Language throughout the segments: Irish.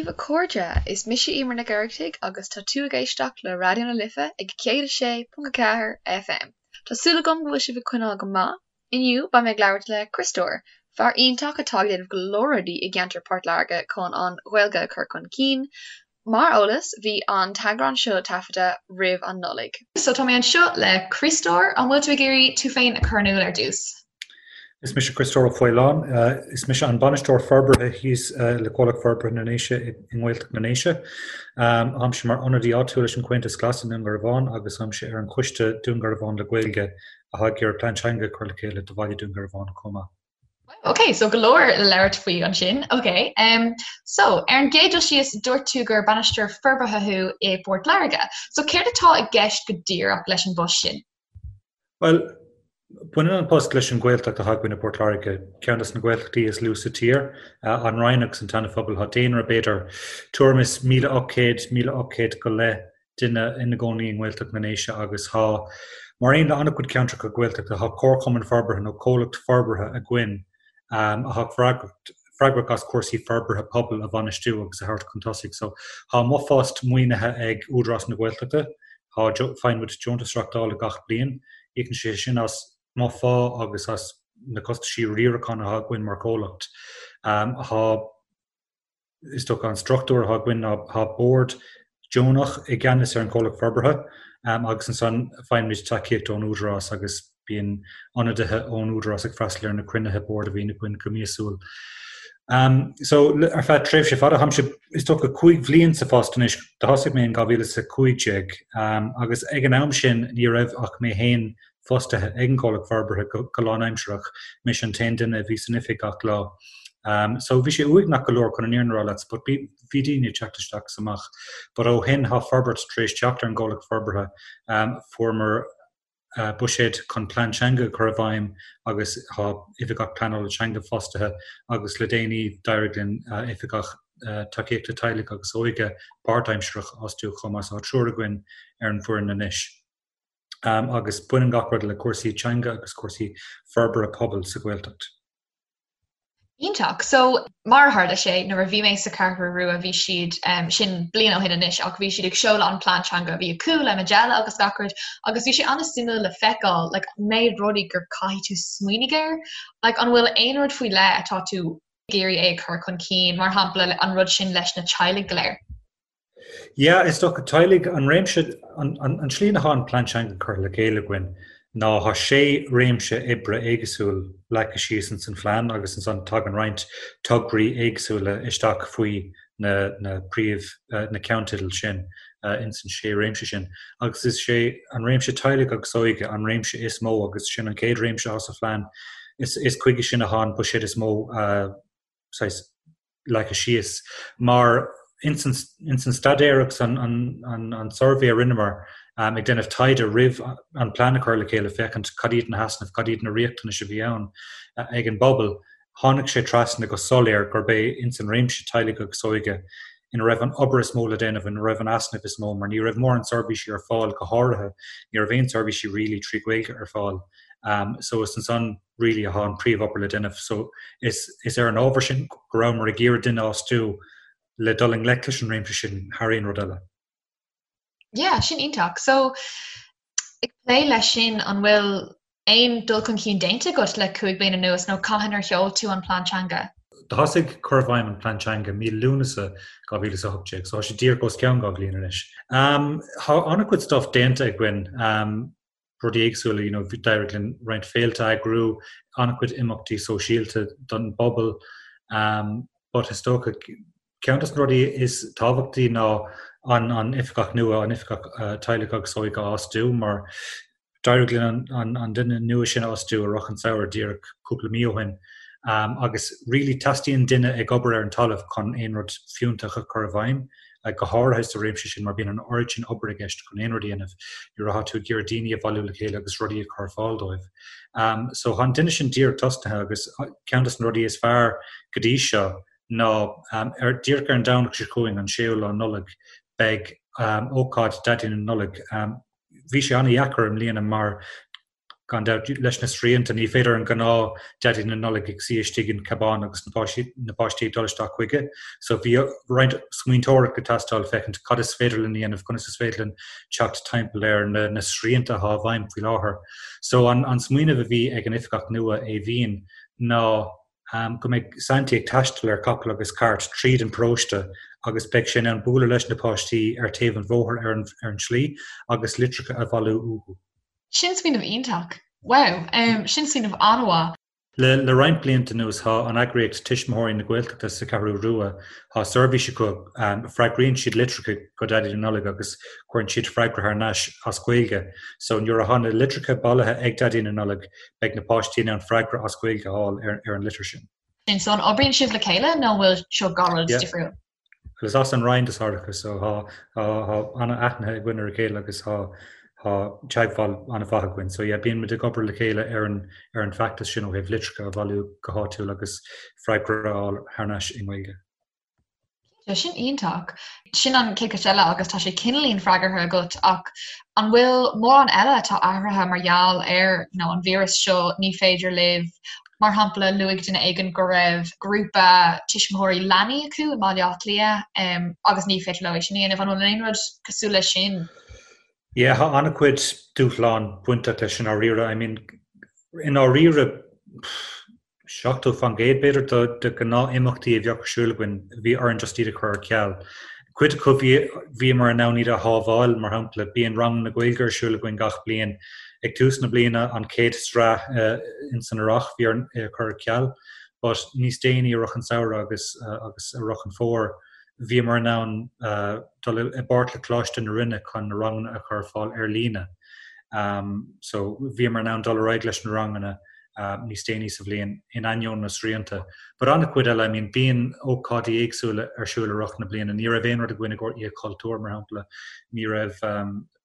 daoibh a chairde, is mise Emer Nic Oireachtaigh agus tá tú ag éisteacht le Raidió na Life ag 106.4 FM. Tá súil agam go bhfuil sibh ag coinneáil go maith. Inniu beidh mé ag labhairt le Criostóir, fear iontach atá ag déanamh go leor rudaí i gceantar Port Láirge chun an Ghaeilge a chur chun cinn. Mar eolas, bhí an t-eagrán seo taifeadta roimh an Nollaig. So tá mé anseo le Criostóir, an bhfuil tú ag iarraidh tú féin a chur in iúl ar dtús? Is mise Criostóir Ó Faoláin. Is mise an Bainisteoir Forbartha thíos le Comhlacht Forbartha na nDéise i nGaeltacht na nDéise. Táimse mar ionadaí áitiúil leis an Chomhaontas Glas i nDún Garbhán agus táimse ar an choiste Dún Garbhán le Gaeilge atá ag iarraidh plean teanga a chur le chéile do bhaile Dún Garbhán chomh maith. Ok, so go leor le labhairt faoi ansin. Ok, um, so ar an gcéad dul síos dúirt tú gur bainisteoir forbartha thú i bPort Láirge. So céard atá i gceist go díreach leis an bpost sin? Bhuel, baineann an post leis an Ghaeltacht atá againn i bPort Láirge, ceann des na Gaeltachtaí is lú sa tír, an Rinn agus an tSeana-Phobal. Tá daonra b'fhéidir tuairim is 1,800, 1,800 go leith duine ina gcónaí i nGaeltacht na nDéise agus tá, mar aon le an-chuid ceantracha Gaeltachta, tá comharchumann forbartha nó comhlacht forbartha againn atá freagrach as cúrsaí forbartha pobail a bhainistiú agus a thabhairt chun tosaigh. So, tá mo phost maoinithe ag Údarás na Gaeltachta, tá, faigheann muid deontas reachtála gach bliain, íocann sé sin as mo phá agus as na costaisí riaracháin atá againn mar chomhlacht. Tá. Is dócha an struchtúr atá againn ná tá bord deonach i gceannas ar an chomhlacht forbartha agus ansan faighimid tacaíocht ón Údarás agus bíonn ionadaithe ón Údarás ag freastal ar na cruinnithe boird a bhíonn againn go míosúil. So ar feadh tréimhse fada, táimse is dócha 5 bhliain sa phost anois, do thosaigh mé in 2015 agus ag an am sin ní raibh ach mé féin fostaithe ag an gcomhlacht forbartha go lánaimsearach, mise an t-aon duine a bhí san oifig gach lá. So bhí sé uaigneach go leor chun an fhírinne a rá leat but bhí daoine ag teacht isteach is amach. But ó shin tá forbairt tar éis teacht ar an gcomhlacht forbartha. Fuaireamar buiséad chun plean teanga a chur i bhfeidhm agus tá oifigeach pleanála teanga fostaithe agus le déanaí d'éirigh linn oifigeach tacaíochta teaghlaigh agus óige páirtaimsearach a fhostú chomh maith. So tá triúr againn ar an bhfoireann anois. agus baineann gach rud le cúrsaí teanga agus cúrsaí forbartha pobail sa Ghaeltacht. Iontach. So, mar a tharla sé, nuair a bhí mé sa Cheathrú Rua bhí siad, sin bliain ó shin anois, ach bhí siad ag seoladh an plean teanga a bhí acu le Majella agus gach rud agus bhí sé an-suimiúil le feiceáil like méid rudaí gur caithfidh tú smaoinigh air. Like an bhfuil aon rud faoi leith atá tú ag iarraidh é a chur chun cinn, mar shampla an rud sin leis na teaghlaigh go léir? Yeah, is dócha teaghlaigh, an réimse, an tslí ina thá an plean teanga curtha le chéile againn ná thá sé réimse oibre éagsúil leagtha síos ins an phlean agus ansan tagann roinnt tograí éagsúla isteach faoi na na príomh na ceannteidil sin ins an sé réimse sin. Agus is é an réimse teaghlaigh agus óige an réimse is mó agus sin an chéad réimse athá sa phlean. Is is chuige sin athá an buiséad is mó saghas leagtha síos. Mar ins an staidéar agus an suirbhé a rinneamar ag déanamh taighde roimh an plean a chur le chéile féachaint cad iad na heasnaimh, cad iad na riachtanais a bhí ann ag an bpobal, tháinig sé trasna go soiléir gurb é ins an réimse teaghlaigh agus óige ina raibh an obair is mó le déanamh, ina raibh an easnamh is mó, mar ní raibh mórán seirbhísí ar fáil, go háirithe ní raibh aon seirbhísí really trí Ghaeilge ar fáil. So is ansan really athá an príomh-obair le déanamh. So is is ar an ábhar sin go rabhamar ag iarraidh duine a fhostú le dul i ngleic leis an réimse sin thar aon rud eile. Yeah, sin iontach. So ag plé leis sin, an bhfuil aon dul chun cinn déanta agat le 5 bliana anuas nó cathain ar sheol tú an plean teanga? Do thosaigh cur i bhfeidhm an plean teanga mí Lúnasa 2018, so tá sé díreach os cionn 2 bhliain anois. Tá an-chuid stuff déanta againn. Rudaí éagsúla, you know, d'éirigh linn roinnt féilte a eagrú, an-chuid imeachtaí sóisialta don bpobal. But is dócha, ceann de na rudaí is tábhachtaí ná an an oifigeach nua, an oifigeach teaghlaigh agus óige a fhostú mar d'éirigh linn an an duine nua sin a fhostú i rith an samhradh díreach cúpla mí ó shin. Agus really teastaíonn duine ag obair ar an talamh chun aon rud fiúntach a chur i bhfeidhm. go háirithe sa réimse sin mar bíonn an oiread sin obair i gceist chun aon rud a dhéanamh nuair atá tú ag iarraidh daoine a bhailiú le chéile agus rudaí a chur ar fáil dóibh. So tá an duine sin díreach tosnaithe agus ceann de na rudaí is fearr go dtí seo ná ar díreach ar an Domhnach seo chugainn, an séú lá Nollag, beidh ócáid Daidí na Nollag. Bhí sé an-dheacair i mbliana mar. Gan dabht, leis na srianta, ní féidir an gnáth Daidí na Nollag ag suí istigh in cabán agus na páistí na páistí ag dul isteach chuige. So bhí roinnt smaointeoireacht ag teastáil féachaint cad is féidir linn a dhéanamh, conas is féidir linn teacht timpeall ar na na srianta atá i bhfeidhm faoi láthair. So an an smaoineamh a bhí ag an oifigeach nua, Aoibhín, ná go mbeidh Santaí ag taisteal ar capall agus cairt tríd an paróiste agus beidh sé in ann bualadh leis na páistí ar taobh an bhóthair ar an ar an tslí agus litreacha a bhailiú uathu. Sin smaoineamh iontach. Wow, sin smaoineamh an-mhaith. Le le roinnt blianta anuas tá an eagraíocht Tuismitheoirí na Gaeltachta sa Cheathrú Rua, tá seirbhís acu, freagraíonn siad litreacha go Daidí na Nollag agus cuireann siad freagra thar n-ais as Gaeilge. So nuair atá na litreacha bailithe ag Daidí na Nollag beidh na páistí in ann freagra as Gaeilge a fháil ar ar an litir sin. So an oibríonn sibh le chéile nó an bhfuil seo dhá rud difriúil? Is as an Rinn do Sorcha so tá an-aithne againn ar a chéile agus tá teagmháil an-mhaith againn. So yeah, bíonn muid ag obair le chéile ar an ar an bhfeachtas sin ó thaobh litreacha a bhailiú go háitiúil agus freagra a fháil thar n-ais i nGaeilge. Cinnte, sin iontach. Sin an chéad cheist eile agus tá sé cineáilín freagartha agat ach an bhfuil mórán eile atá athraithe mar gheall ar you know, an víreas seo ní féidir libh Mar shampla, luaigh duine éigin go raibh grúpa tuismitheoirí leanaí acu i mBaile Átha Cliath agus ní féidir leo é sin a dhéanamh. An bhfuil aon rud cosúil leis sin? Yeah, tá an-chuid dúshlán bainteach leis i ndáiríre. I mean, i ndáiríre, 70% b'fhéidir de de ghnáth-imeachtaí a bheadh ar siúl againn, bhí orainn just iad a chur ar ceal. Cuid acu bhí bhíomar in ann iad a shábháil, mar shampla, bíonn ranganna Gaeilge ar siúl againn gach bliain. Ag tús na bliana, an chéad sraith in san earrach, bhí orainn é a chur ar ceal, but níos déanaí i rith an samhradh agus agus i rith an fómhair, bhíomar in ann dul i bpáirt le Coláiste na Rinne chun na ranganna a chur ar fáil ar líne. So bhíomar in ann dul ar aghaidh leis na ranganna níos déanaí sa bhliain in ainneoin na srianta. But an-chuid eile, I mean, bíonn ócáidí éagsúla ar siúl i rith na bliana. Ní raibh aon rud againn i gcomhair Oíche Chultúir, mar shampla. Ní raibh,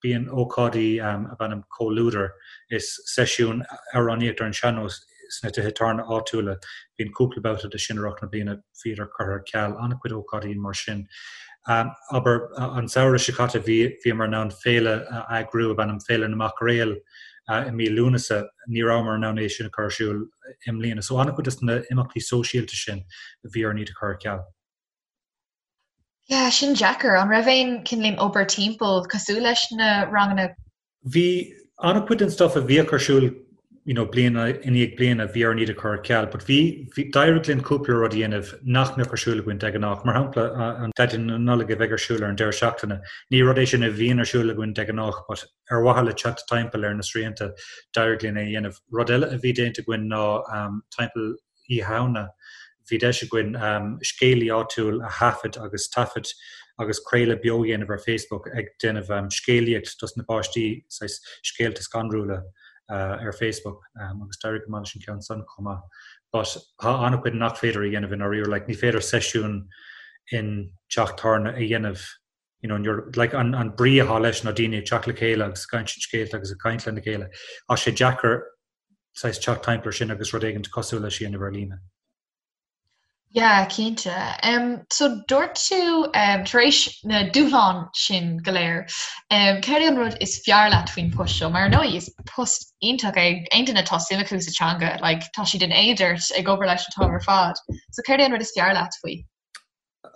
bíonn ócáidí ab ainm Comhluadar, is seisiún amhránaíocht ar an sean-nós sna tithe tábhairne áitiúla. Bíonn cúpla babhta de sin i rith na bliana, bhíodar curtha ar ceal, an-chuid ócáidí mar sin. Abair, an samhradh seo caite bhí, bhíomar in ann féile a eagrú ab ainm Féile na Mac Réal i mí Lúnasa, ní rabhamar in ann é sin a chur ar siúl i mbliana. So an-chuid de na imeachtaí sóisialta sin, bhí orainn iad a chur ar ceal. Yeah, sin deacair. An raibh aon cineáilín obair timpeall cosúil leis na ranganna? Bhí an-chuid den stuff a bhíodh ar siúl you know, bliain i ndiaidh bliana, bhí orainn iad a chur ar ceal, but bhí, bhí, d'éirigh linn cúpla rud a dhéanamh nach mbeadh ar siúl againn de ghnáth. Mar shampla, an Daidí na Nollag a bheidh ar siúl ar an deireadh seachtaine. Ní rud é sin a bhíonn ar siúl againn de ghnáth, but ar mhaithe le teacht timpeall ar na srianta, d'éirigh linn é a dhéanamh. Rud eile a bhí déanta againn ná timpeall Oíche Shamhna, bhí deis againn scéalaí áitiúil a thaifead agus taifead agus craoladh beo a dhéanamh ar Facebook ag déanamh scéalaíocht dos na páistí, saghas scéalta scanrúla ar Facebook agus d'éirigh go maith leis an ceann san chomh maith. But tá an-chuid nach féidir a dhéanamh i ndáiríre, like ní féidir seisiún in teach tábhairne a dhéanamh you know, you're, like, an, an brí atá leis ná daoine ag teacht le chéile agus ag insint scéalta agus ag caint lena chéile. Tá sé deacair saghas teacht timpeall ar sin agus rud éigin cosúil leis a dhéanamh ar líne. Yeah, cinnte. Um, so dúirt tú um, tar éis na dúshlán sin go léir, um, céard é an rud is fearr leat faoin post seo? Mar ar ndóigh is post iontach é aon duine atá suim acu sa teanga, like, tá siad in éad ort ag obair leis an t-am ar fad. So céard é an rud is fearr leat faoi?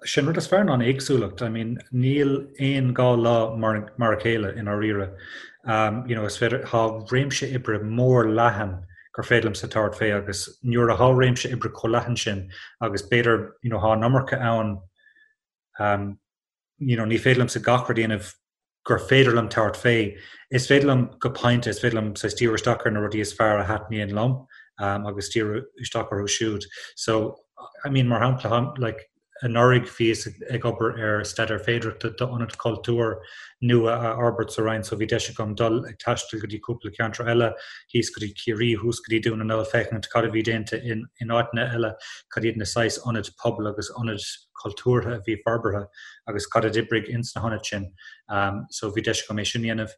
Sé an rud is fearr ná an éagsúlacht. I mean, níl aon dá lá mar mar a chéile i ndáiríre. You know, is féidir, tá réimse oibre mór leathan gur féidir liomsa tabhairt fé agus nuair atá réimse oibre chomh leathan sin agus b'fhéidir, you know, tá an iomarca ann, you know, ní féidir liomsa gach rud a dhéanamh gur féidir liom tabhairt fé. Is féidir liom go pointe, is féidir liom saghas díriú isteach ar na rudaí is fearr a thaitníonn liom agus díriú isteach orthu siúd. So, I mean, mar shampla, like, anuraidh bhíos ag obair ar staidéar féidearthachta d'ionad cultúir nua a fhorbairt sa Rinn so bhí deis agam dul ag taisteal go dtí cúpla ceantar eile, thíos go dtí Ciarraí, thuas go dtí Dún na nGall, féachaint cad a bhí déanta in in áiteanna eile, cad iad na saghas ionaid pobail agus ionaid cultúrtha a bhí forbartha agus cad a d'oibrigh ins na hionaid sin. So bhí deis agam é sin a dhéanamh.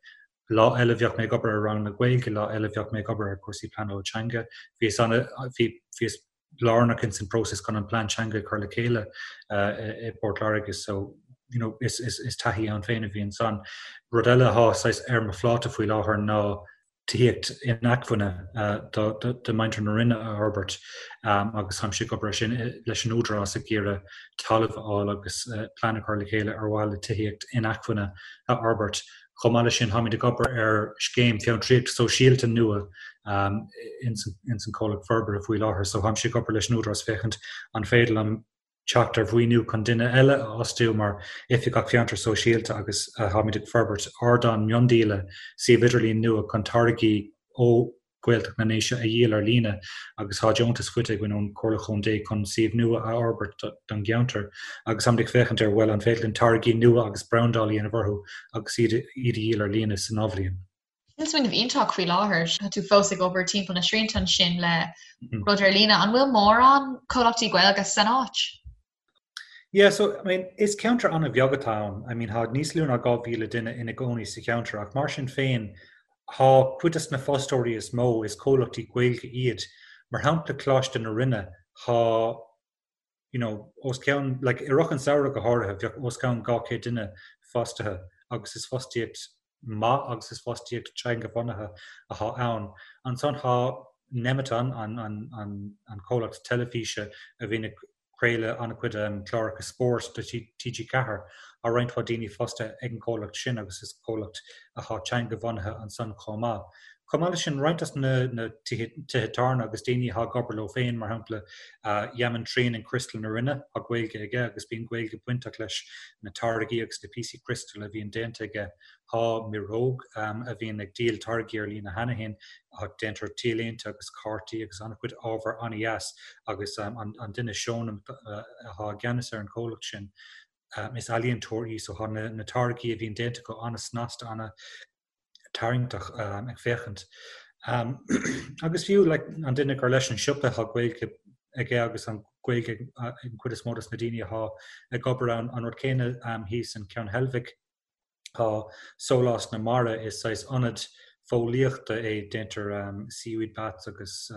Lá eile bheadh mé ag obair ar ranganna Gaeilge, lá eile bheadh mé ag obair ar chúrsaí pleanála teanga. Bhíos ana, bhí, bhíos lárnach ins an próiseas chun an plean teanga a chur le chéile i bPort Láirge so you know, is, is, is taithí ann féin a bhí ansan. Rud eile atá saghas ar mo phláta faoi láthair ná. Tithíocht inacmhainne do mhuintir na Rinne a fhorbairt agus táimse ag obair ar sin leis an Údarás ag iarraidh talamh a fháil agus plean a chur le chéile ar mhaithe le tithíocht inacmhainne a fhorbairt. Chomh maith leis sin táimid ag obair ar scéim fiontraíocht sóisialta nua ins an comhlacht forbartha faoi láthair so táimse ag obair leis an Údarás féachaint an féidir liom teacht ar mhaoiniú chun duine eile a fhostú mar Oifigeach Fiontar Sóisialta agus táimid ag forbairt ardán miondíola suíomh idirlín nua chun táirgí ó Ghaeltacht na nDéise a dhíol ar líne agus tá deontas faighte againn ón Chomhairle Chontae chun suíomh nua a fhorbairt don gceantar agus táimid ag féachaint ar bhuel an féidir linn táirgí nua agus brandáil a dhéanamh orthu agus iad a dhíol ar líne san athbhliain. Sin smaoineamh iontach faoi láthair. Tá tú fós ag obair timpeall na srianta ansin le rud ar líne. An bhfuil mórán comhlachtaí Gaeilge san áit? Yeah, so, I mean, is ceantar an-bheag atá ann. I mean, tá níos lú ná 2,000 duine ina gcónaí sa cheantar ach mar sin féin, tá cuid de na fostóirí is mó, is comhlachtaí Gaeilge iad. Mar shampla, Coláiste na Rinne, tá you know, os cionn, like, i rith an samhradh go háirithe, bheadh os cionn 200 duine fostaithe agus is fostaíocht maith agus is fostaíocht teanga-bhunaithe athá ann. Ansan thá Nemeton, an, an, an, an comhlacht teilifíse a bhíonn ag craoladh an-chuid um, cláracha spóirt do TG4, tá roinnt mhaith daoine fostaithe ag an gcomhlacht sin agus is comhlacht athá teanga-bhunaithe ansan chomh maith. Chomh maith leis sin, roinnt des na tithe tábhairne agus daoine atá ag obair leo féin, mar shampla Yaman Trian in Criostal na Rinne, tá Gaeilge aige agus bíonn Gaeilge bainteach leis na táirgí agus na píosaí criostail a bhíonn déanta aige. Tá Mireog a bhíonn ag díol táirgí ar líne cheana féin, déantar t-léinte agus cártaí agus an-chuid ábhar an-dheas agus an duine Seonam atá i gceannas ar an chomhlacht sin, is ealaíontóir í so tá na táirgí a bhíonn déanta acu an-snasta, an- tarraingteach ag féachaint. Agus fiú like, an duine gur leis an siopa tá Gaeilge aige agus an Ghaeilge ag an chuid is mó dos na daoine atá ag obair ann, an rud céanna thíos in Ceann Heilbhic tá Sólás na Mara is saghas ionad fóillíochta é déantar seaweed baths agus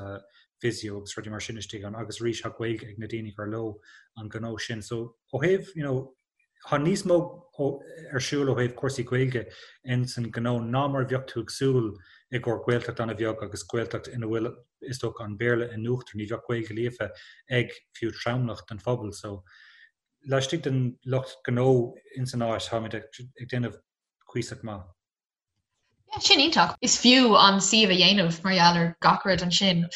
physio agus rudaí mar sin istigh ann agus arís tá Gaeilge ag na daoine gur leo an gnó sin. So ó thaobh you know, Tá níos mó ar siúl ó thaobh cúrsaí Gaeilge ins an gnó ná mar a bheadh tú ag súil i gcomhair Gaeltacht an-bheag agus Gaeltacht ina bhfuil is dócha an Béarla in uachtar, ní bheadh Gaeilge líofa ag fiú tromlach den phobal. So laistigh den lucht gnó ins an áit táimid ag déanamh cuíosach maith. Yeah, sin iontach. Is fiú an suíomh a dhéanamh mar gheall ar gach rud ansin.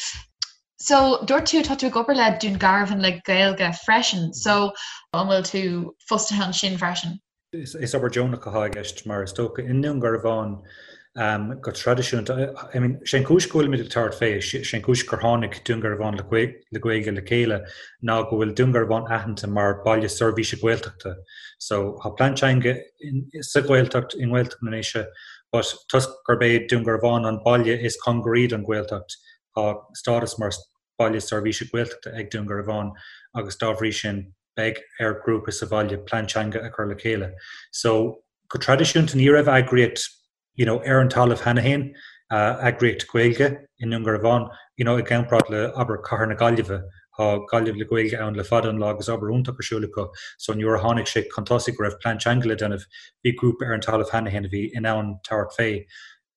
So, dúirt tú tá tú ag obair le Dún Garbhán le Gaeilge freisin, so an bhfuil tú fostaithe ansin freisin? Is obair deonach atá i gceist mar is dócha i nDún Garbhán go traidisiúnta. I mean, sé an cúis go bhfuilimid ag tabhairt fé, sé an cúis gur tháinig Dún Garbhán le Gaeilge le chéile ná go bhfuil Dún Garbhán aitheanta mar baile seirbhíse Gaeltachta. So, tá plean teanga sa Ghaeltacht, i nGaeltacht na nDéise, but toisc gurb é Dún Garbhán an baile is cóngaraí don Ghaeltacht, tá stádas mar baile seirbhíse Gaeltachta ag Dún Garbhán agus dá bhrí sin beidh ar ghrúpa sa bhaile plean teanga a chur le chéile. So, go traidisiúnta ní raibh eagraíocht you know, ar an talamh cheana féin, eagraíocht Gaeilge i nDún Garbhán, you know, i gcomparáid le, abair, cathair na Gaillimhe, tá Gaillimh le Gaeilge ann le fada an lá agus obair iontach ar siúl acu, so nuair a tháinig sé chun tosaigh go raibh plean teanga le déanamh, bhí grúpa ar an talamh cheana féin a bhí in ann tabhairt fé,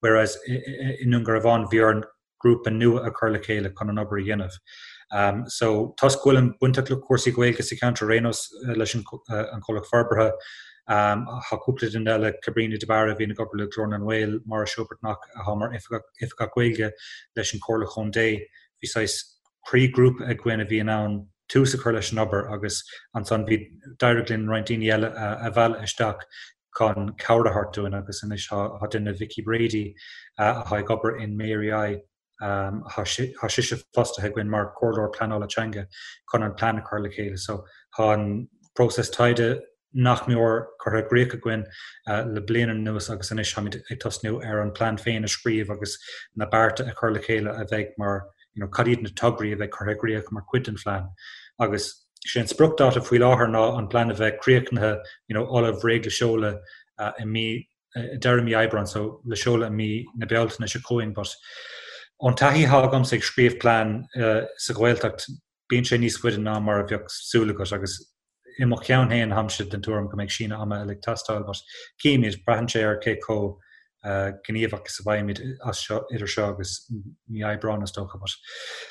whereas i nDún Garbhán bhí orainn grúpa nua a chur le chéile chun an obair a dhéanamh. So toisc go bhfuilim bainteach le cúrsaí Gaeilge sa cheantar ar aon nós leis an comhlacht forbartha, tá cúpla duine eile, Cabrina de Barra a bhíonn ag obair le Glór na nGael, Máire Seó-Breathnach atá mar Oifigeach Gaeilge leis an Chomhairle Chontae, bhí saghas croíghrúpa againn a bhí in ann tús a chur leis an obair agus ansan bhí d'éirigh linn roinnt daoine eile a mhealladh isteach chun cabhair a thabhairt dúinn agus anois tá duine, Vicky Brady, atá ag obair in Mary I, tá sise fostaithe againn mar chomhairleoir pleanála teanga chun an plean a chur le chéile. So tá an próiseas taighde nach mór curtha i gcrích againn le bliain anuas agus anois táimid ag tosnú ar an plean féin a scríobh agus na bearta a chur le chéile a bheidh mar, you know, cad iad na tograí a bheidh curtha i gcrích mar chuid den phlean. Agus sé an spriocdháta faoi láthair ná an plean a bheith críochnaithe, you know, ullamh réidh le seoladh i mí, deireadh mí Aibreáin, so le seoladh i mí na Bealtaine seo chugainn. But ón taithí atá agamsa ag scríobh plean sa Ghaeltacht, bíonn sé níos faide ná mar a bheadh súil agat agus i mo cheann féin táimse den tuairim go mbeidh síneadh ama eile ag teastáil but cífimid, braitheann sé ar cé chomh. gníomhach is a bheimid as seo, idir seo agus mí Aibreáin is dócha, but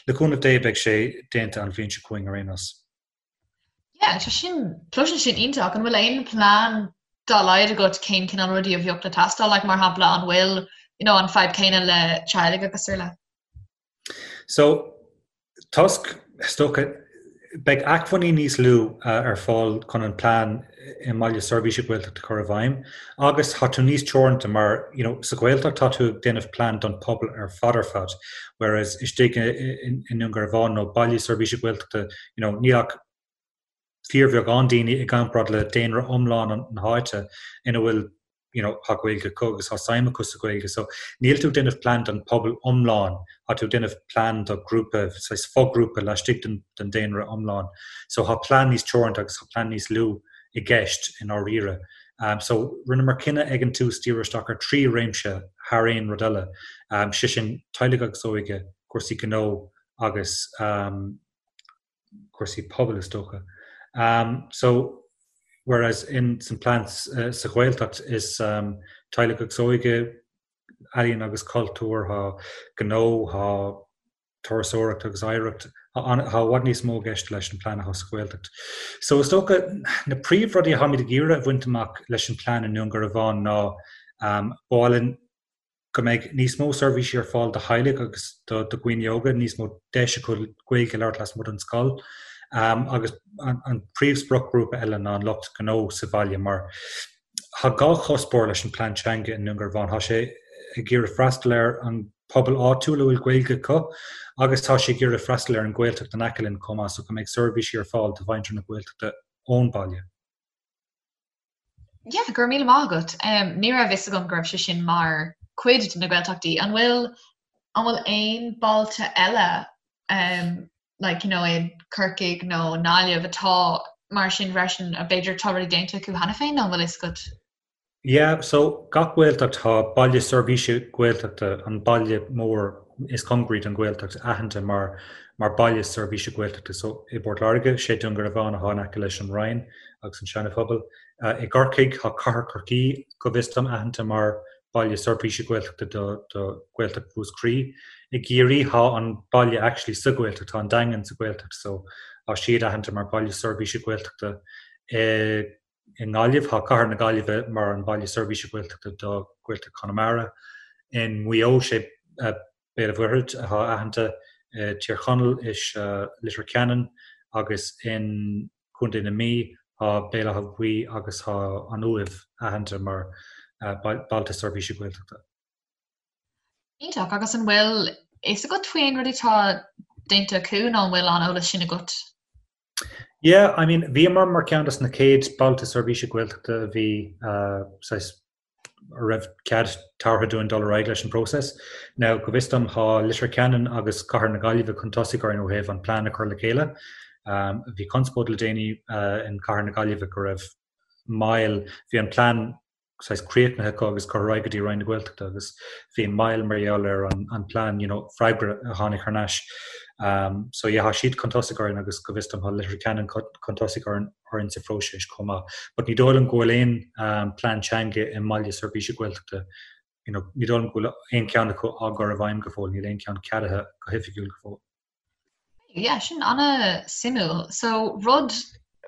le cúnamh Dé beidh sé déanta an bhliain seo chugainn ar aon nós. Yeah, tá sin, cloiseann sin iontach. An bhfuil aon plean dá laghad agat cén cineál rudaí a bheadh le teastáil, like mar shampla an bhfuil, you know, an fadhb céanna le teaghlaigh agus araile? So, toisc, is dócha, beidh acmhainní níos lú ar fáil chun an plean i mBaile Seirbhíse Gaeltachta a chur i bhfeidhm agus tá tú níos teoranta mar, you know, sa Ghaeltacht tá tú ag déanamh plean don pobal ar fad ar fad, whereas istigh i nDún Garbhán nó Baile Seirbhíse Gaeltachta, you know, níl ach fíorbheagán daoine i gcomparáid le daonra iomlán na háite ina bhfuil you know tá Gaeilge acu agus tá suim acu sa Ghaeilge. So níl tú ag déanamh plean don pobal iomlán, tá tú ag déanamh plean do grúpa, saghas foghrúpa laistigh den, den daonra iomlán. So tá plean níos teoranta agus tá plean níos lú i gceist i ndáiríre. Um, so rinneamar cinneadh ag an tús díriú isteach ar thrí réimse thar aon rud eile. Um, sé sin teaghlaigh agus óige, cúrsaí gnó agus um, cúrsaí pobail is dócha. So whereas in san plean sa Ghaeltacht is teaghlaigh agus óige, ealaíon agus cultúr, tá gnó, tá turasóireacht agus oidhreacht, tá i bhfad níos mó i gceist leis an plean atá sa Ghaeltacht. So is dócha na príomhrudaí atáimid ag iarraidh a bhaint amach leis an plean i nDún Garbhán ná ba mhaith linn go mbeidh níos mó seirbhísí ar fáil do theaghlaigh agus do dhaoine óga, níos mó deis acu Gaeilge a labhairt lasmuigh den scoil. Agus an príomh-spriocghrúpa eile ná an lucht gnó sa bhaile mar tá dhá chuspóir leis an plean teanga i nDún Garbhán. Tá sé ag iarraidh freastal ar an pobal áitiúil a bhfuil Gaeilge acu agus tá sé ag iarraidh freastal ar an Ghaeltacht in aice linn chomh maith so go mbeidh seirbhísí ar fáil do mhuintir na Gaeltachta ón baile. Yeah, go raibh míle maith agat. Ní raibh fhios agam go raibh sé sin mar chuid de na Gaeltachtaí. An bhfuil an bhfuil aon bailte eile um, like, you know, i Corcaigh nó nGaillimh atá mar sin freisin a b'fhéidir tá rudaí déanta acu cheana féin nó an bhfuil fhios agat? Yeah, so gach Gaeltacht tá baile seirbhíse Gaeltachta, an baile mór is cóngaraí don Ghaeltacht aitheanta mar mar baile seirbhíse Gaeltachta. So i bPort Láirge, sé Dún Garbhán atá in aice leis an Rinn agus an Seana-Phobal. I gCorcaigh, tá Cathair Chorcaí, go bhfios dom, aitheanta mar baile seirbhíse Gaeltachta do do Ghaeltacht Mhúscraí. I gCiarraí, tá an baile actually sa Ghaeltacht, tá an Daingean sa Ghaeltacht so tá siad aitheanta mar baile seirbhíse Gaeltachta. I i nGaillimh, tá Cathair na Gaillimhe mar an baile seirbhíse Gaeltachta do Ghaeltacht Chonamara. In Maigh Eo, sé Béal an Mhuirthead atá aitheanta, i Tír Chonaill is Leitir Ceanainn agus in Contae na Mí tá Béal Átha Buí agus tá an Uaimh aitheanta mar bailte seirbhíse Gaeltachta. Iontach, agus an bhfuil fhios agat faoi aon rudaí atá déanta acu nó an bhfuil an eolas sin agat? Yeah, I mean, bhíomar mar ceann dos na chéad bailte seirbhíse Gaeltachta a bhí saghas a raibh cead tabhartha dúinn dul ar aghaidh leis an bpróiseas. Now, go bhfios dom, tá Leitir Ceanainn agus Cathair na Gaillimhe chun tosaigh orainn ó thaobh an plean a chur le chéile. Bhí conspóid le déanaí in Cathair na Gaillimhe go raibh moill, bhí an plean saghas críochnaithe acu agus curtha ar aghaidh go dtí Roinn na Gaeltachta agus bhí moill mar gheall ar an plean, you know, freagra a tháinig thar n-ais. So yeah, tá siad chun tosaigh orainn agus go bhfios dom tá Leitir Ceanainn chun tosaigh orainn. orainn sa phróiseas chomh maith. But ní dóigh liom go bhfuil aon plean teanga i mbaile seirbhíse Gaeltachta, you know, ní dóigh liom go bhfuil aon cheann acu á gcur i bhfeidhm go fóill, níl aon cheann ceadaithe go hoifigiúil go fóill. Yeah, sin an-suimiúil. So rud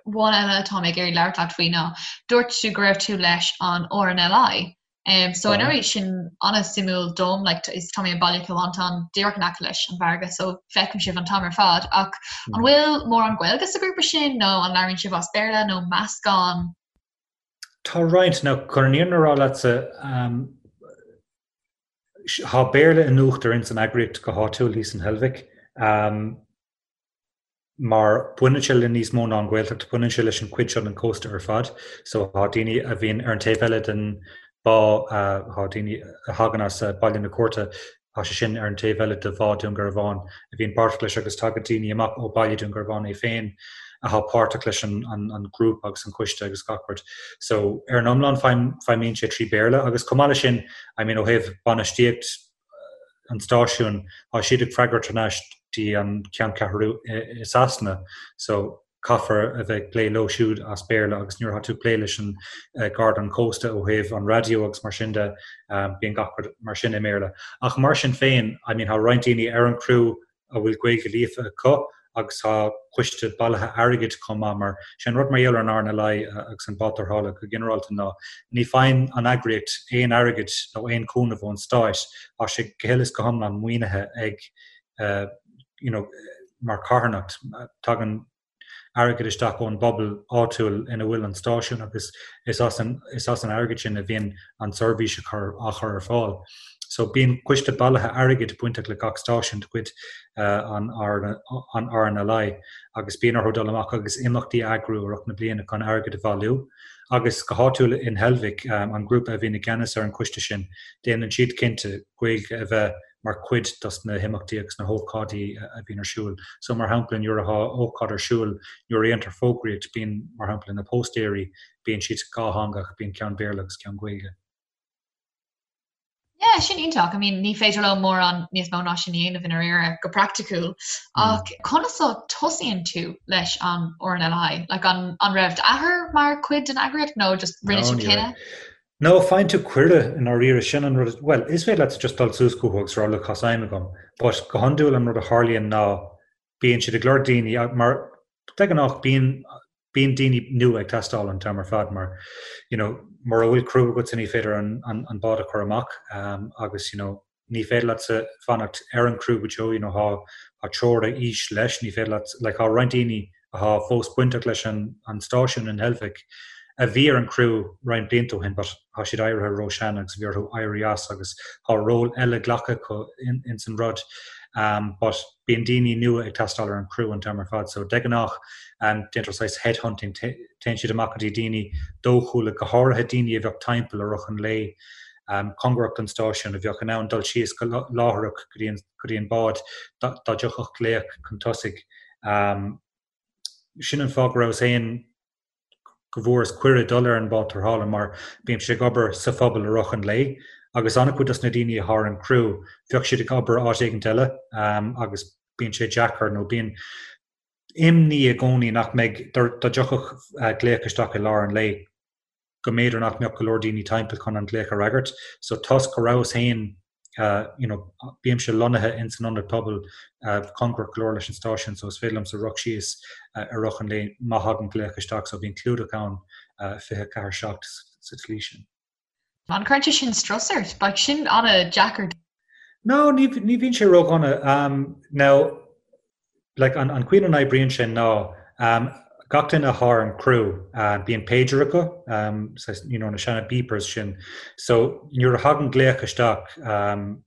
amháin eile atá mé ag iarraidh labhairt leat faoi ná dúirt tú go raibh tú leis an RNLI. Um, so anyway sin an-suimiúil dom, like, is tá mé i mBaile Chill Mhantáin díreach in aice leis an bhfarraige, so feicim sibh an t-am ar fad. Ach an bhfuil mórán Gaeilge sa ghrúpa sin nó an labhraíonn sibh as Béarla nó meascán? Tá roinnt, now chun an fhírinne a rá leatsa, um, tá Béarla in uachtar ins an eagraíocht go háitiúil thíos in Heilbhic. Um, mar baineann sé le níos mó ná an Ghaeltacht, baineann sé leis an chuid seo den chósta ar fad. So tá daoine a bhíonn ar an taobh eile den bhá, tá daoine a thagann as Baile na Cúirte, tá sé sin ar an taobh eile de Bhá Dún Garbhán, a bhíonn páirteach leis agus tagann daoine amach ó Baile Dún Garbhán é féin atá páirteach leis an grúpa agus an coiste agus gach rud. So ar an iomlán feidhmíonn sé trí Bhéarla agus chomh maith leis sin, I mean ó thaobh bainistíocht, an stáisiúin, tá siad ag freagairt thar n-ais dtí an ceanncheathrú i Sasana. So. Caithfear a bheith ag plé leo siúd as Béarla agus nuair atá tú ag plé leis an Garda an Cósta ó thaobh an raidió agus mar sin de, bíonn gach rud mar sin i mBéarla. Ach mar sin féin, I mean, tá roinnt daoine ar an gcriú a bhfuil Gaeilge líofa acu agus tá coiste bailithe airgid chomh maith mar sé an rud mar gheall ar an RNLI agus an bád tarrthála go ginearálta ná ní faigheann an eagraíocht aon airgead nó aon chúnamh ón stáit, tá sé go huile is go hiomlán maoinithe ag you know, mar carthanacht, tagann airgead isteach ón bpobal áitiúil ina bhfuil an stáisiún agus is as an, is as an airgead sin a bhíonn an tseirbhís á chur, á chur ar fáil. So bíonn coiste bailithe airgid bainteach le gach stáisiún de chuid an, an RNLI agus bíonn orthu dul amach agus imeachtaí a eagrú i rith na bliana chun airgead a bhailiú. Agus go háitiúil in Heilbhic, an grúpa a bhíonn i gceannas ar an choiste sin, déanann siad cinnte Gaeilge a bheith mar chuid dos na himeachtaí agus na hócáidí a bhíonn ar siúl. So mar shampla nuair atá ócáid ar siúl, nuair a dhéantar fógraíocht, bíonn mar shampla na póstaeirí, bíonn siad dhátheangach, bíonn ceann Béarla agus ceann Gaeilge. Yeah, sin iontach. I mean, ní féidir leo mórán níos mó ná sin a dhéanamh i ndáiríre go praiticiúil. Ach conas a tosaíonn tú leis an RNLI? Like an, an raibh d'athair mar chuid den eagraíocht nó just rinne tú cinneadh? No, faigheann tú cuireadh i ndáiríre, sin an rud, bhuel, is féidir leat just dul suas chucu agus rá look, tá suim agam, but go hiondúil an rud a tharlaíonn ná bíonn siad ag lorg daoine mar de ghnáth bíonn bíonn daoine nua ag teastáil an t-am ar fad mar you know mura bhfuil criú agatsa ní féidir an an an bád a chur amach um, agus you know ní féidir leatsa fanacht ar an gcriú go deo, you know, tá tá teora aois leis, ní féidir leat, like, tá roinnt daoine atá fós bainteach leis an an stáisiún in Heilbhic a bhí ar an gcriú roinnt blianta ó shin but tá siad éirithe ró-shean agus bhí orthu éirí as agus tá ról eile glactha acu in ins an rud um, but bíonn daoine nua ag teastáil ar an gcriú an t-am ar fad so de ghnáth um, déantar saghas headhunting téann siad amach go dtí daoine dóchúla go háirithe daoine a bheadh timpeall i rith an lae cóngarach don stáisiún a bheadh in ann dul síos go láithreach go dtí an, go dtí an bád dá dtiocfadh glaoch chun tosaigh. Sin an fáth go rabhas féin, go bhfuaireas cuireadh dul ar an bád tarrthála mar bímse ag obair sa phobal i rith an lae agus an-chuid dos na daoine atá ar an gcriú bheadh siad ag obair áit éigint eile agus bíonn sé deacair nó bíonn imní i gcónaí nach mbeidh, dá dtiocfadh glaoch isteach i lár an lae. go mb'fhéidir nach mbeadh go leor daoine timpeall chun an glaoch a fhreagairt. So toisc go rabhas féin you know bímse lonnaithe ins an ionad pobail cóngarach go leor leis an stáisiún so is féidir liomsa rith síos i rith an lae má thagann glaoch isteach so bíonn clúdach ann 24 7 sa tslí sin. An gcuireann sé sin strus ort? Bheadh sin an-deacair. No, ní ní bhíonn sé ródhona. Now, like, an an chaoi ina n-oibríonn sé ná gach duine atá ar an gcriú, bíonn pager acu, saghas, you know, na seana beepers sin. So, nuair a thagann glaoch isteach,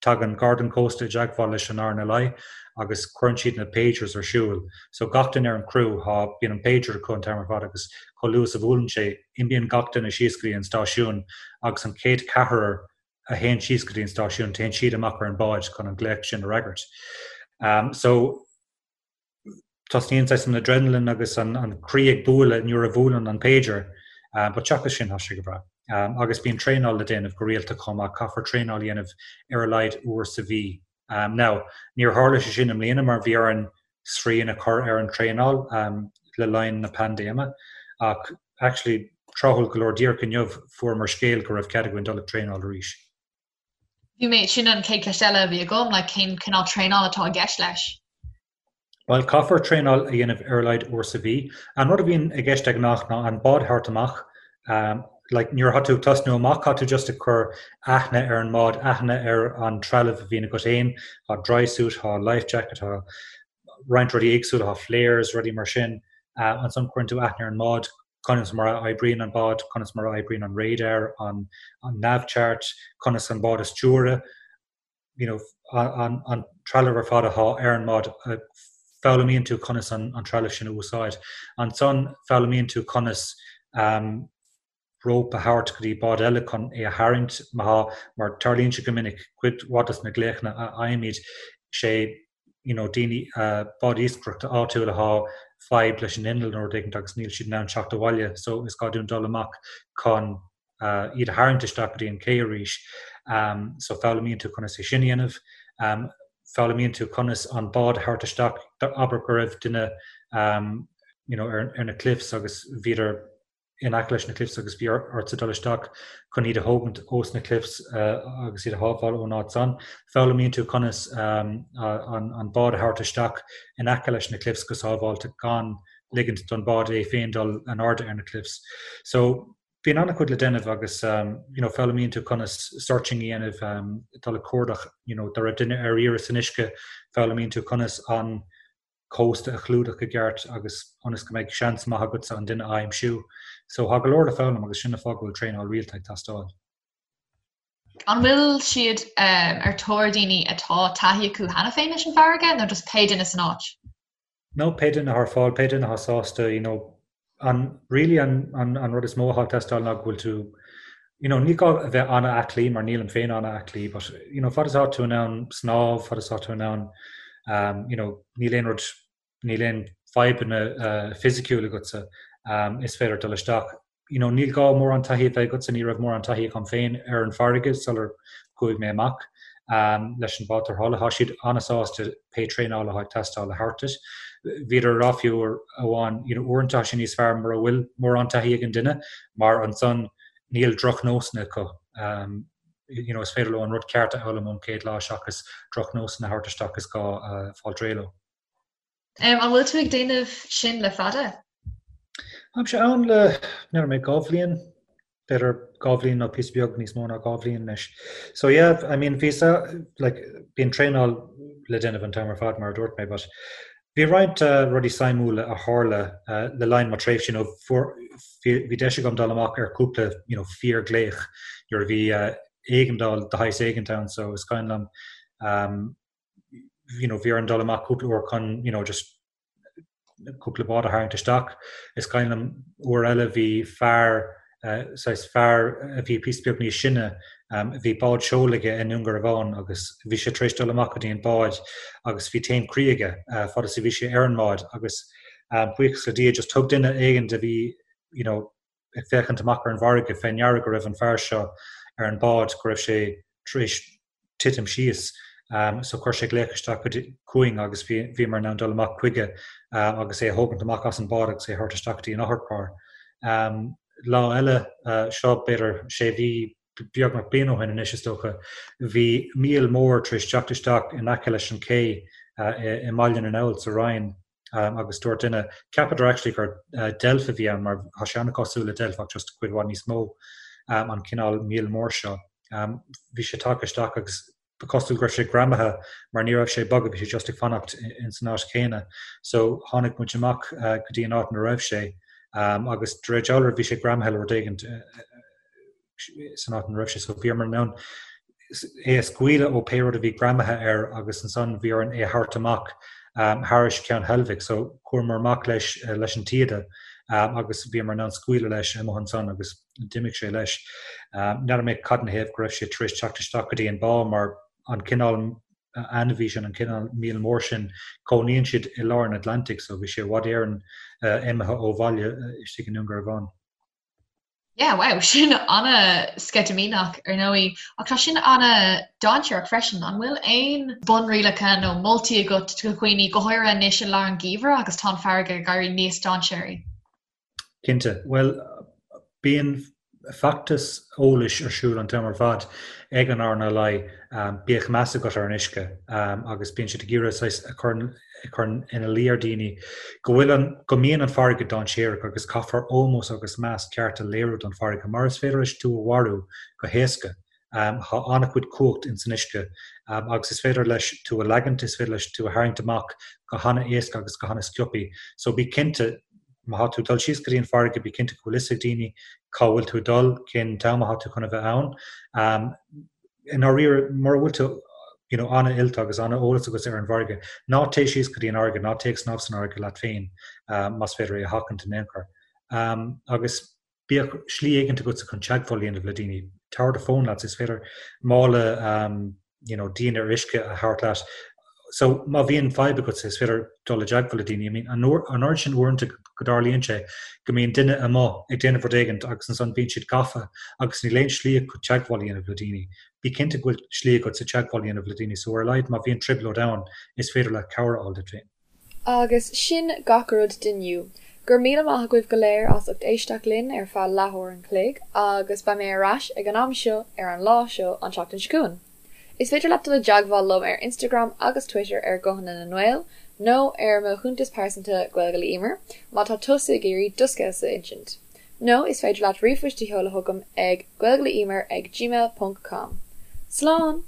Tagann Garda an Chósta i dteagmháil leis an RNLI agus cuireann siad na pagers ar siúl. So gach duine ar an gcriú, tá, bíonn an pager acu an t-am ar fad agus chomh luath is a bhuaileann sé, imíonn gach duine síos go dtí an stáisiún agus an chéad cheathrar a théann síos go dtí an stáisiún, téann siad amach ar an bád chun an glaoch sin a fhreagairt. So. Tosnaíonn saghas an adrenaline agus an croí ag bualadh nuair a bhuaileann an pager, but seachas sin tá sé go breá. Agus bíonn traenáil le déanamh go rialta chomh maith, caithfear traenáil a dhéanamh ar a laghad uair sa mhí. Now, níor tharla sé sin i mbliana mar bhí orainn srian a chur ar an traenáil le linn na paindéime ach actually tráthúil go leor díreach inniu fuaireamar scéal go raibh cead againn dul ag traenáil arís. Bhí mé, sin an chéad cheist eile a bhí agam, like cén cineál traenáil atá i gceist leis? Bhuel, caithfear traenáil a dhéanamh ar a laghad uair sa mhí. An rud a bhíonn i gceist de ghnáth ná an bád a thabhairt amach. Like, nuair atá tú ag tosnú amach, tá tú just ag cur aithne ar an mbád, aithne ar an trealamh a bhíonn agat féin, tá dry suit, tá life jacket, tá roinnt rudaí éagsúla, tá flares, rudaí mar sin. Ansan cuireann tú aithne ar an mbád, conas mar a oibríonn an bád, conas mar a oibríonn an radar, an nav chart, conas an bád a stiúradh, you know, an, an trealamh ar fad atá ar an mbád, foghlaimíonn tú conas an, an trealamh sin a úsáid. Ansan foghlaimíonn tú conas um, rópa a thabhairt go dtí bád eile chun é a tharraingt má thá, mar tarlaíonn sé go minic, cuid mhaith dos na glaochanna a fhaighimid, sé you know daoine, bád iascaireachta áitiúil athá fadhb leis an inneall nó rud éigint agus níl siad in ann teacht abhaile so is gá dúinn dul amach chun iad a tharraingt isteach go dtí an cé arís. So foghlaimíonn tú conas é sin a dhéanamh. Foghlaimíonn tú conas an bád a thabhairt isteach, abair go raibh duine. you know, ar, ar na cliffs agus bhíodar in aice leis na cliffs agus bhí ortsa dul isteach chun iad a thógaint ós na cliffs agus iad a shábháil ón áit san. Foghlaimíonn tú conas an bád a thabhairt isteach in aice leis na cliffs go sábháilte gan ligint don bád é féin dul in airde ar na cliffs. So bíonn an-chuid le déanamh agus you know, foghlaimíonn tú conas searching a dhéanamh, dul ag cuardach, you know, dá raibh duine ar iarraidh san uisce, foghlaimíonn tú conas an cósta a chlúdach i gceart agus ionas go mbeidh seans maith agatsa an duine a aimsiú. So tá go leor le foghlaim agus sin an fáth go bhfuil traenáil rialta ag teastáil. An bhfuil siad ar tóir daoine atá taithí acu cheana féin leis an bhfarraige nó just pé duine san áit? No, pé duine atá ar fáil, pé duine atá sásta, you know, an, really an, an, an rud is mó atá ag teastáil ná go bhfuil tú, you know, ní gá a bheith an-aclaí mar nílim féin an-aclaí, but, you know, fad is atá tú in ann snámh, fad is atá tú in ann, um, you know, níl aon rud, níl aon fadhbanna uh, fisiciúil agatsa, um, is féidir dul isteach. You know, níl gá mórán taithí a bheith agatsa, ní raibh mórán taithí agam féin ar an bhfarraige sular chuaigh mé amach um, leis an bád tarrthála. Tá siad an-sásta pé traenáil atá ag teastáil a thabhairt duit. Bhíodar ag rá fiú uair amháin, you know, uaireanta tá sé níos fearr mura bhfuil mórán taithí ag an duine mar ansan níl drochnósanna acu. Um, you know, is féidir leo an rud ceart a fhoghlaim ón chéad lá seachas drochnósanna a thabhairt isteach is gá uh, fáil réidh leo. An bhfuil tú ag déanamh sin le fada? Táimse ann le, n'fheadar mé, 2 bhliain, b'fhéidir 2 bhliain nó píosa beag níos mó ná 2 bhliain anois. So yeah, I mean bhí sa, like, bíonn traenáil le déanamh an t-am ar fad mar a dúirt mé, but bhí roinnt uh, rudaí suimiúla a tharla uh, le linn mo tréimhse, you know, fuair, bhí, bhí deis agam dul amach ar cúpla, you know, fíorghlaoch nuair a bhí uh, éigeandáil de shaghas éigint ann, so is cuimhin liom um, you know, bhí orainn dul amach cúpla uair chun, you know, just cúpla bád a tharraingt isteach. Is cuimhin liom uair eile bhí fear, uh, saghas fear a bhí píosa beag níos sine, um, bhí bád seoil aige i nDún Garbhán agus bhí sé tar éis dul amach go dtí an bád agus bhí taom croí aige uh, fad is a bhí sé ar an mbád agus um, buíochas le Dia just thug duine éigin a bhí you know, ag féachaint amach ar an bhfarraige fé ndeara go raibh an fear seo ar an bád, go raibh sé tar éis titim síos. So chuir sé glaoch isteach chugainn agus bhíomar in ann dul amach chuige agus é a thógaint amach as an bád agus é a thabhairt isteach go dtí an otharcharr. Lá eile, seo b'fhéidir sé mhí, beagnach bliain ó shin anois is dócha, bhí míol mór tar éis teacht isteach in aice leis an ché i mBaile na nGall sa Rinn. agus dúirt duine, cheapadar actually gur deilf a bhí ann mar tá sé an-chosúil le deilf ach just cuid mhaith níos mó an cineál míol mór seo. Bhí sé tagtha isteach agus ba chosúil go raibh sé greamaithe mar ní raibh sé ag bogadh, bhí sé just ag fanacht ins an áit chéanna. So tháinig muid amach go dtí an áit ina raibh sé agus de réir dealraimh bhí sé greamaithe le rud éigin san áit ina raibh sé so bhíomar in ann é a scaoileadh ó pé rud a bhí greamaithe air agus ansan bhí orainn é a thabhairt amach thairis Ceann Heilbhic so chuamar amach leis leis an taoide agus bhíomar in ann scaoileadh leis amuigh ansan agus d'imigh sé leis. N'fheadar mé cad ina thaobh go raibh sé tar éis teacht isteach go dtí an bá mar an cineál ainmhí sin, an cineál míol mór sin, cónaíonn siad i lár an Atlantaigh so bhí sé i bhfad Éireann imithe ó bhaile istigh i nDún Garbhán. Yeah, wow, sin an-sceitimíneach ar ndóigh, ach tá sin an-dainséarach freisin. An bhfuil aon bunrialacha nó moltaí agat do dhaoine, go háirithe anois i lár an gheimhridh agus tá an farraige ag éirí níos dainséaraí? Cinnte. Bhuel, bíonn feachtas eolais ar siúl an t-am ar fad ag an RNLI, bíodh meas agat ar an uisce, agus bíonn siad ag iarraidh saghas a chur ag cur ina luí ar dhaoine go bhfuil an, go mbíonn an farraige dainséarach agus caithfear ómós agus meas ceart a léiriú don farraige mar is féidir leis tú a mharú go héasca. Tá an-chuid cumhacht ins an uisce agus is féidir leis tú a leagaint, is féidir leis tú a tharraingt amach go hana-éasca agus go hana-sciobthaí. So bí cinnte, má thá tú ag dul síos go dtí an farraige, bí cinnte go bhfuil fhios ag daoine cá bhfuil tú ag dul, cén t-am athá tú chun a bheith ann. I ndáiríre, mura bhfuil tú you know an-oilte agus an-eolas agat ar an bhfarraige, ná téigh síos go dtí an fharraige, ná téigh ag snámh san fharraige leat féin más féidir é a sheachaint in aon chor. Agus bíodh slí éigint agatsa chun teagmháil a dhéanamh le daoine. Tabhair do fón leat, is féidir mála you know díon ar uisce a thabhairt leat. So má bhíonn fadhb agatsa is féidir dul i dteagmháil le daoine. I mean an oiread sin uaireanta go dtarlaíonn sé go mbíonn duine amuigh ag déanamh rud éigint agus ansan bíonn siad gafa agus níl aon slí acu teagmháil a dhéanamh le daoine. Bí cinnte go bhfuil slí agatsa teagmháil a dhéanamh le daoine so ar a laghad má bhíonn trioblóid ann is féidir leat cabhair a fháil duit féin. Agus sin gach rud d'inniu. Go raibh míle maith agaibh go léir as ucht éisteacht linn ar feadh leathuair an chloig agus beidh mé ar ais ag an am seo ar an lá seo an tseachtain seo chugainn. Is féidir leat dul i dteagmháil liom ar Instagram agus Twitter ar Guthanna na nGael nó ar mo chuntas pearsanta Gaeilge le Emer má tá tusa ag iarraidh do scéalsa a insint. Nó is féidir leat ríomhphost a sheoladh chugam ag gaeilgeleemer ag gmail ponc com. Slán!